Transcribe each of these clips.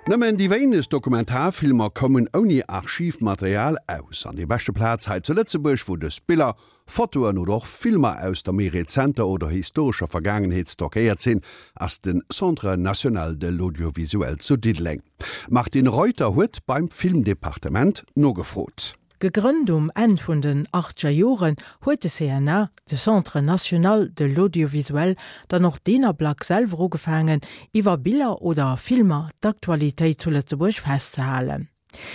Nëmmen déi wéinegst Dokumentarfilmer kommen ouni Archivmaterial aus. An déi beschte Plaz hei zu Lëtzebuerg, wou dës Biller, Fotoen oder och Filmer aus der méi rezenter oder historescher Vergaangenheet stockéiert sinn, ass de Centre national de l'audiovisuel zu Diddeleng. D'Martine Reuter huet beim Filmdepartement nogefrot. Gegrënnt um Enn vun den achtzeger Joren, huet de CNA, de Centre national de l'audiovisuel, dann och deen Ablack selwer ugefaangen, iwwer Biller oder Filmer d'Aktualitéit zu Lëtzebuerg festzehalen.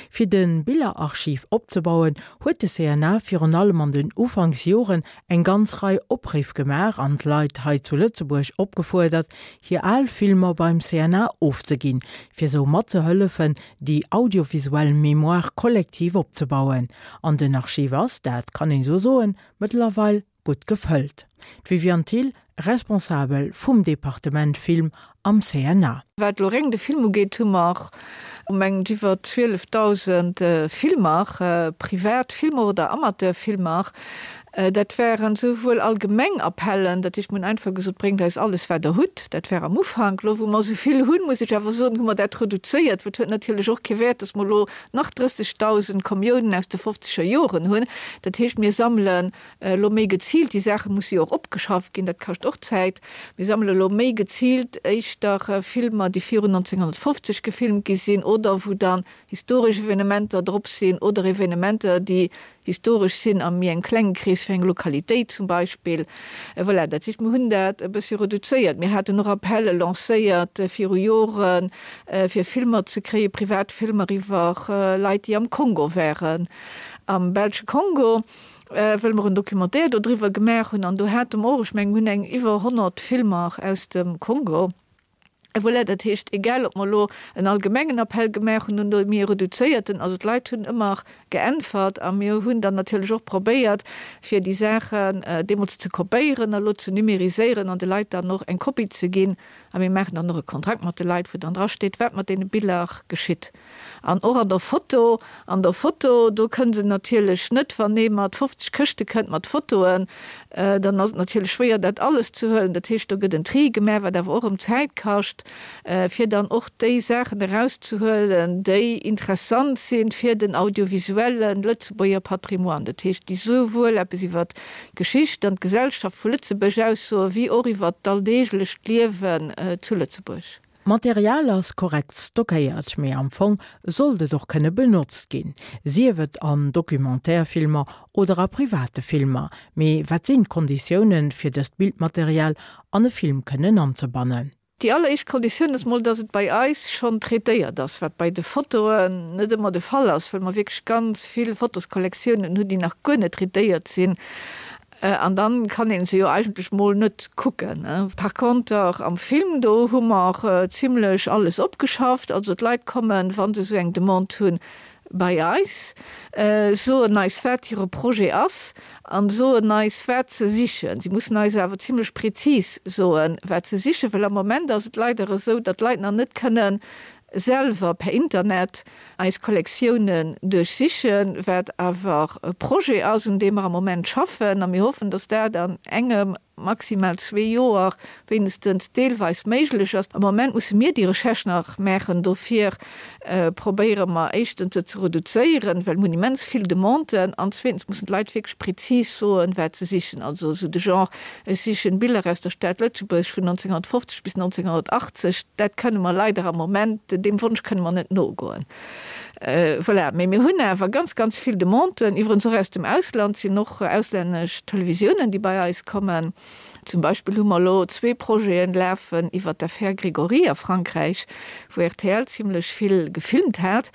Fir de Billerarchiv opzebauen, huet de CNA virun allem an den Ufanksjoren eng ganz Rei Opriff gemaach an d'Leit hei zu Lëtzebuerg opgefuerdert, hir al Filmer beim CNA ofzeginn, fir sou matzehëllefen, déi audiovisuell Mémoire collective opzebauen. An den Archiv ass, dat kann een sou soen, mëttlerweil gutt gefëllt. D'Viviane Thill, Responsabel vum Departement Film am CNA. Wat elo réng de Film ugeet, hu mer mengen ech iwwer 12.000 Filmer, privat Filmer oder Amateurfilmer. Dat waren souwuel allgemeng Appellen, dat heescht, mir hunn einfach gesot, bréngt eis alles wat der hutt. Dat war am Ufank. Elo wou mer esou vill hunn, muss ech awer soen, hu mer dat reduzéiert, well et huet natierlech och kee Wäert, datt mer elo nach 30.000 Camionen aus de fofzeger Joren hunn. Dat heescht, mir sammelen elo méi geziilt, déi Saache musse jo och opgeschafft ginn, dat kascht och Zäit, mir sammele elo méi geziilt éischter Filmer, déi virun 1950 gefilmt gi sinn oder wou dann historesch Evenementer drop sinn oder Evenementer, déi historesch sinn a méi engem klenge Krees, fir eng Lokalitéit zum Beispill. Voilà, dat heescht, mir hunn dat e bëssi reduzéiert. Mir haten och Appelle lancéiert viru Joren, fir Filmer ze kréien, privat Filmer iwwer Leit, déi am Kongo waren, am belsche Kongo, well mer en Documentaire dodriwwer gemaach hunn. An do hate mer och, ech mengen, mir hunn eng iwwer 100 Filmer aus dem Kongo. Voilà, dat heescht, egal ob mer elo en allgemengen Appell gemaach hunn oder méi e reduzéierten, also d'Leit hunn ëmmer geäntwert a mir hunn dann natierlech och probéiert, fir déi Saachen deemools ze kopéieren a lo ze numériséieren an de Leit dann och eng Kopie ze ginn. A mir maachen dann och e Kontrakt mat de Leit, wou dann drasteet, wat mat deene Biller geschitt. An och an der Foto, an der Foto, do kënn se natierlech net, wann ee mat 50 Këschte kënnt mat Fotoen, dann ass et natierlech schwéier, dat alles ze huelen. Dat heescht, do gëtt en Tri gemaach, wat awer och erëm Zäit kascht, fir dann och déi Saachen erauszehuelen, déi interessant sinn fir den audiovisuelle Lëtzebuerger Patrimoine. Dat heescht, déi souwuel eppes iwwert d'Geschicht an d'Gesellschaft vu Lëtzebuerg aussoen, wéi och iwwert d'alldeeglecht Liewen zu Lëtzebuerg. D'Material ass korrekt stockéiert, mee am Fong sollt et och kënne benotzt ginn, sief et an Documentaire-Filmer oder a private Filmer. Mee wat sinn d'Konditiounen, fir dëst Bildmaterial an e Film kënnen anzebannen? Déi alleréischt Konditioun ass mol, dass et bei eis schonn traitéiert ass, wat bei de Fotoen net ëmmer de Fall ass, well mer wierklech ganz vill Fotoskollektiounen hunn, déi nach guer net traitéiert sinn. An dann kann een se jo eigentlech mol net kucken. Par conter am Film, do hu mer zimlech alles opgeschafft. Also d'Leit kommen, wa se esou eng Demande hunn, bei eis, soen eis wat hire Projet ass an soen eis wat se sichen. Si mussen eis awer zimlech prezis soen, wat se sichen, well am Moment ass et leider esou, datt d'Leit nach net kënnen selwer per Internet eis Kollektiounen duerchsichen, wat awer e Projet ass, un deem mer am Moment schaffen, a mir hoffen, dass dat an engem, maximal zwee Joer wéinstens deelweis méiglech ass. Am Moment musse mir déi Recherche nach maachen. Dofir probéiere mer éischtens se ze reduzéieren, well mir hunn immens vill Demanden, an zweetens mussen d'Leit wierklech prezis soen, wat se sichen. Also esou de Genre, Ech sichen Biller aus der Stad Lëtzebuerg vun 1950 bis 1980. Dat kënne mer leider am Moment, deem Wonsch kënne mer net nogoen. Voilà, mee mir hunn awer ganz, ganz vill Demanden, iwwerens och aus dem Ausland, sinn och auslännesch Televisiounen, déi bei eis kommen. Zum Beispill hu mer elo zwee Projeten lafen iwwer d'Affaire Grégory a Frankräich, wou rtl zimlech vill gefilmt hat.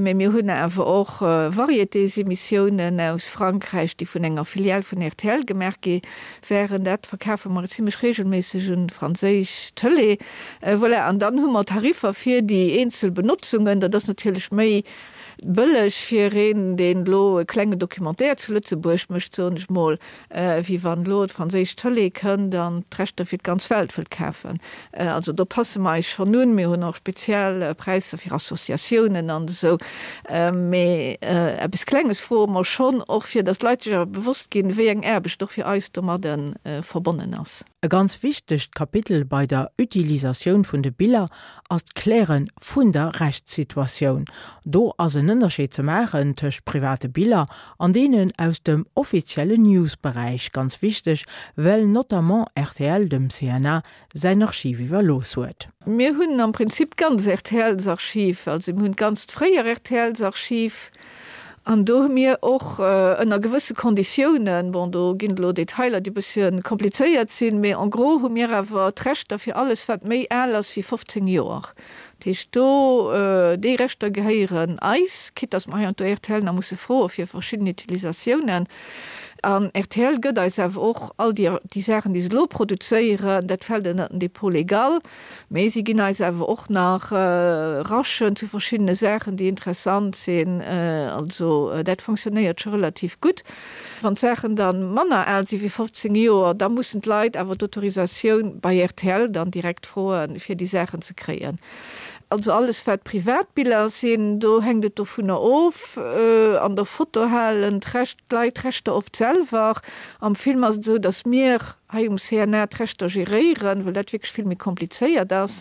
Mee mir hunn awer och Varietésémissiounen aus Frankräich, déi vun enger Filiale vun rtl gemaach gi wären. Dat verkafe mer zimlech regelméisseg un d'franséisch Tëlee. Voilà, an dann hu mer Tariffer fir déi eenzel Benotzungen. Dat ass natierlech méi bëlleg fir een, deen elo e klenge Documentaire zu Lëtzebuerg mécht, soen ech mol, wéi wann elo d'franséisch Tëlee kënnt an d'Rechter fir d'ganz Welt wëllt kafen. Also do passe mer eis schonn un. Mir hunn och speziell Präisser fir Associatiounen an esou. Mee eppes Klenges froe mer schonn och, fir datt d'Leit sech awer bewosst ginn, wéi eng Aarbecht och fir eis domadde verbonnen ass. E ganz wichtegt Kapitel bei der Utilisatioun vun de Biller ass d'Kläre vun der Rechtssituatioun. Do ass en Ënnerscheed ze maachen tëscht private Biller an deenen aus dem offiziellen News-Beräich, ganz wichteg, well notamment rtl dem CNA säin Archiv iwwerlooss huet. Mir hunn am Prinzip d'ganz RTLs-Archiv, also mir hunn d'ganzt fréier RTLs-Archiv An do hu mir och ënner gewësse Konditiounen, bon, do ginn et elo Detailer, déi e bëssche komplizéiert sinn, mee en gros hu mir awer d'Rechter fir alles, wat méi al ass wéi 15 Joer. Dat heescht, do, déi Rechter gehéieren eis, quitte dass mer heiansdo rtl nach musse froe fir verschidden Utilisatiounen. An rtl gëtt eis awer och all déi, déi Saachen, déi se elo produzéieren, dat fält ënnert den Dépôt légal. Mee si ginn eis awer och nach Rachen zu verschiddene Saachen, déi interessant sinn. Also dat fonctionnéiert scho relativ gutt. Wann d'Saachen da manner al si wéi 15 Joer, da mussen d'Leit awer d'Autorisatioun bei rtl dann direkt froen, fir déi Saachen ze kréien. Also alles wat Privatbiller sinn, do hänkt et dovunner of. An der Foto halen d'Leit d'Rechter oft selwer. Am Film ass et esou, datt mir hei um CNA d'Rechter geréieren, well dat wierklech vill méi komplizéiert ass.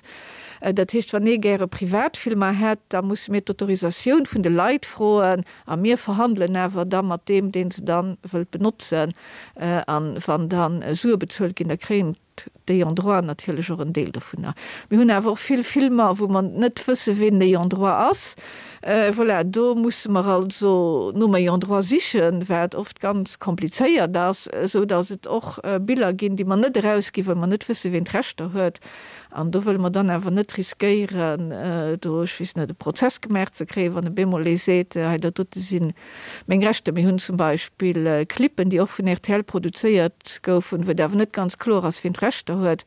Dat heescht, wann ee gäre Privatfilmer hätt, da musse mir d'Autorisatioun vun de Leit froen a mir verhandelen awer da mat deem, dee se da wëllt benotzen. A wann da Sue bezuelt ginn, da kréien d'Ayants droit natierlech och en Deel dovunner. Mir hunn awer och vill Filmer, wou mer net wësse ween den Ayant droit ass. Voilà, do musse mer also nom Ayant droit sichen, wat oft ganz komplizéiert ass, esou datt et och Biller ginn, déi mer net erausginn, well mer net wësse ween d'Rechter huet. An do wëlle mer dann awer net riskéieren, do, ech weess net, e Prozess gemaach ze kréien, wann op eemol ee seet, hei dat dote si meng Rechter. Mir hunn zum Beispill Clippen, déi och vun rtl produzéiert goufen, wou et awer net ganz kloer ass, ween d'Rechter huet.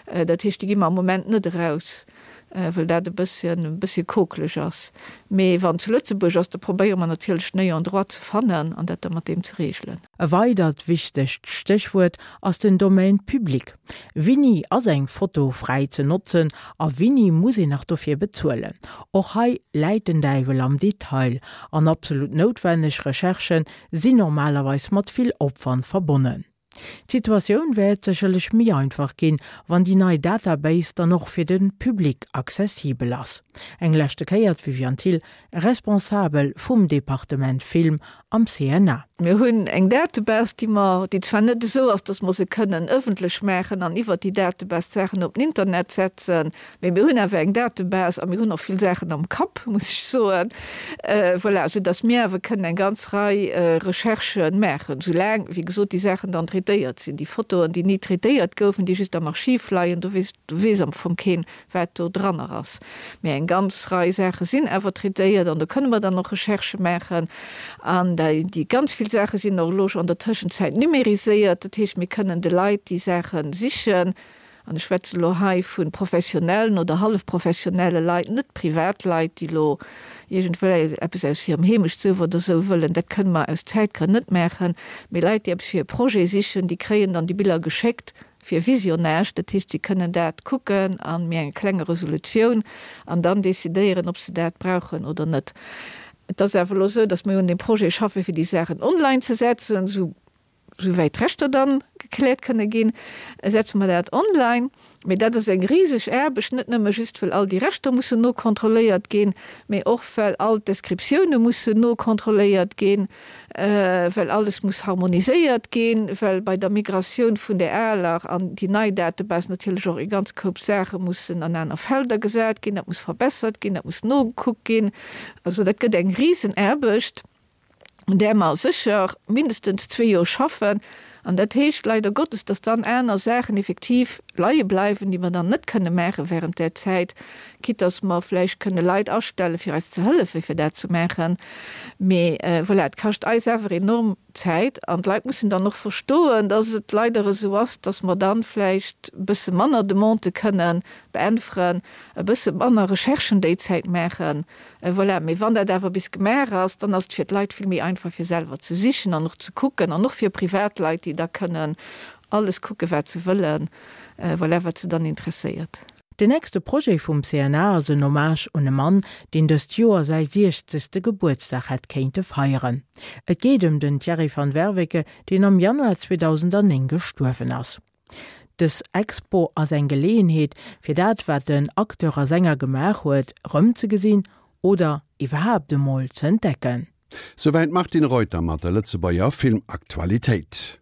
Dat heescht, déi gi mer am Moment net eraus. well dat e bësschen, e bëssche kokeleg ass. Mee wann zu Lëtzebuerg ass, da probéiere mer natierlech den Ayant droit ze fannen an dat da mat deem ze regelen. E weidert wichtegt Stéchwuert ass den Domaine public. Wini ass eng Foto fräi ze notzen a wini muss een nach dofir bezuelen? Och hei läit den Däiwel am Detail an absolut noutwenneg Recherchen sinn normalerweis mat vill Opwand verbonnen. D'Situatioun wäert sécherlech méi einfach ginn, wann déi nei Database dann och fir de Public accessibel ass. Eng leschte Kéier d'Viviane Thill, Responsabel vum Departement Film am CNA. Mir hunn eng Database, déi mer, déi zwar net esou ass, datt mer se kënnen ëffentlech maachen an iwwert déi Database d'Saachen op den Internet setzen, Mee mir hunn awer eng Database a mir hunn och vill Saachen am Kapp, muss ech soen, voilà, soudass mir awer kënnen eng ganz Rei Recherchë maachen, soulaang, wéi gesot, déi Saachen dann traitéiert sinn. Déi Fotoen, déi ni traitéiert goufen, déi just am Archiv leien, do weess, do weess am Fong keen, wat do dranner ass. Mee eng ganz Rei Saache sinn awer traitéiert an do kënne mer dann och Recherchë maachen. An déi ganz vill Saache sinn och elo scho an der Tëschenzäit numériséiert, dat heescht, mir kënnen de Leit déi Saache sichen, an ech schwätzen elo hei vu professionellen oder hallefprofessionelle Leit, net Privatleit, déi elo iergendwéi eppes aus hirem Heemechtsduerf oder esou wëllen, dat kënne mer aus Zäitgrënn net maachen, mee Leit, déi eppes fir e Projet sichen, déi kréien dann déi Biller geschéckt fir Visionnage, dat heescht, si kënnen dat kucken a méi enger klenger Resolutioun an dann decidéieren, ob se dat brauchen oder net. Et ass awer elo esou, datt mir un deem Projet schaffen, fir déi Saachen online ze setzen, esou Souwäit d'Rechter dann gekläert kënne ginn, setze mer dat online. Mee dat ass eng riseg Aarbecht, net nëmme just well all déi Rechter mussen nokontrolléiert ginn, mee och well all d'Descriptioune mussen nokontrolléiert ginn, well alles muss harmoniséiert ginn, well bei der Migratioun vun där aler an déi nei Database natierlech och e ganz Koup Saache mussen an aner Felder gesat ginn, dat muss verbessert ginn, dat muss nogekuckt ginn. Also dat gëtt eng Risenaarbecht. un där mer sécher mindestens zwee Joer schaffen. An dat heescht leider Gottes, dass dann aner Saachen effektiv leie bleiwen, déi mer dann net kënne maache während där Zäit, quitte dass mer vläicht kënne Leit astelle fir eis ze hëllefe fir dat ze maachen. Mee voilà, et kascht eis awer enorm Zäit an d'Leit mussen dann och verstoen, dass et leider esou ass, dass mer dann vläicht e bësse manner Demandë kënne beäntweren, e bësse manner Recherchen déi Zäit maachen. Voilà, mee wann dat awer bis gemaach ass, dann ass et fir d'Leit vill méi einfach fir selwer ze sichen an och ze kucken an och fir Privatleit, déi da kënnen alles kucken, wat se wëllen, voilà, wat se dann interesséiert. Den nächste Projet vum CNA ass en Hommage un e Mann, deen dëst Joer säi siechzegste Gebuertsdag hätt kéinte feieren. Et geet ëm den Thierry van Werveke, deen am Januar 2009 gestuerwen ass. Dës Expo ass eng Geleeënheet, fir dat, wat den Acteur a Sänger gemaach huet, erëmzegesinn oder iwwerhaapt emol ze entdecken. Souwäit d'Martine Reuter mat der Lëtzebuerger Filmaktualitéit.